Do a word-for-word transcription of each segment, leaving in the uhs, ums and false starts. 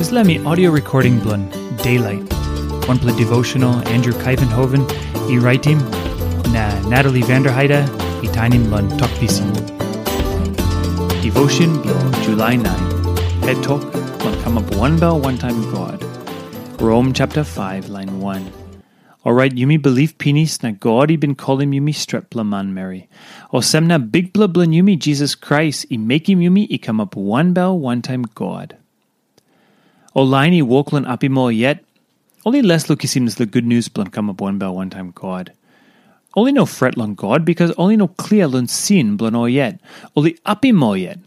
Dispela mi audio recording bilong Daylight, wanpela devotional Andrew Kaivenhoven i raitim, na Natalie Vanderheide i tainim long Tok Pisin. Devotion bilong July nine, Het Tok bilong Kamap Wanbel Wantaim God. Rom chapter five, line one. Orait yumi bilip pinis na God i bin kolim yumi stretpela manmeri. Olsem na Bikpela bilong yumi Jisas Krais i mekim yumi i kamap wanbel wantaim God. Ol lain i wok long apim ol yet, ol i les long kisim dispela gutnius bilong kamap wanbel wantaim God. Ol i no fret long God, bikas ol i no klia long sin bilong ol yet. Ol i apim ol yet.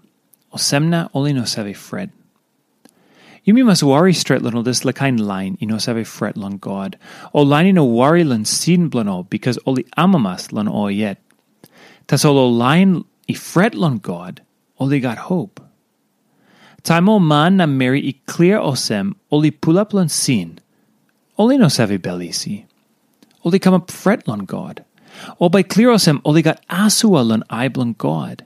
Olsem na ol i no save fret. Yumi mas wari stret long ol dispela kain lain i no save fret long God, ol lain i no wari long sin bilong ol, bikas ol i amamas long ol yet. Tasol ol lain i fret long God, ol i gat hop. Taim ol man na meri i klia olsem ol i pulap long sin, ol i no save bel isi. Ol i kamap fret long God. Ol bai klia olsem ol i gat asua long ai bilong God.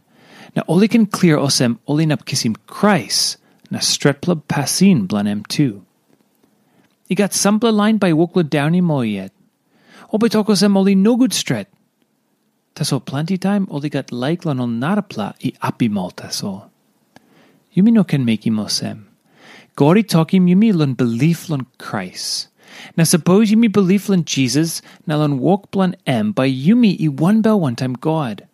Na ol i ken klia olsem ol inap kisim Krais na stretpela pasin bilong em tu. I gat sampela lain bai wok long daunim ol yet. Ol bai tok olsem ol i nogut stret. Tasol planti taim ol i gat laik long ol narapela i apim ol tasol. Yumi no ken mekim olsem. God i tokim yumi long bilip long Krais. Na sapos yumi bilip long Jisas na long wok bilong em, bai yumi i wanbel wantaim God.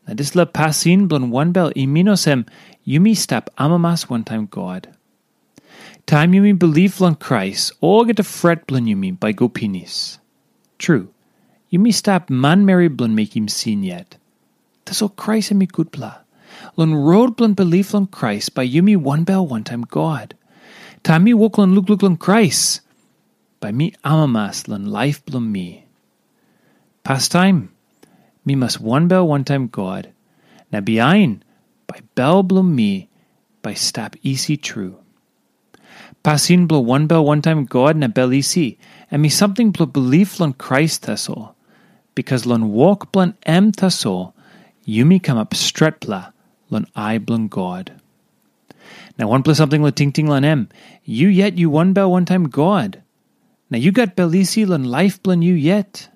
Na dispela pasin bilong wanbel i min olsem yumi stap amamas wantaim God. Taim yumi bilip long Krais, olgeta fret bilong yumi bai go pinis. Tru, yumi stap manmeri bilong mekim sin yet. Tasol Krais em i gutpela. Long rot bilong bilip long Krais, bai yumi wanbel wantaim God. Taim mi wok long lukluk long Krais, bai mi amamas long laip bilong mi. Pastaim, mi mas wanbel wantaim God, na bihain, bai bel bilong mi bai stap isi tru. Pasin bilong wanbel wantaim God na bel isi, em i samting bilong bilip long Krais tasol, bikas long wok bilong em tasol, yumi kamap stretpela long ai bilong God. Na wanpela samting long tingting long em, yu yet yu wanbel wantaim God, na yu gat bel isi long laip bilong yu yet.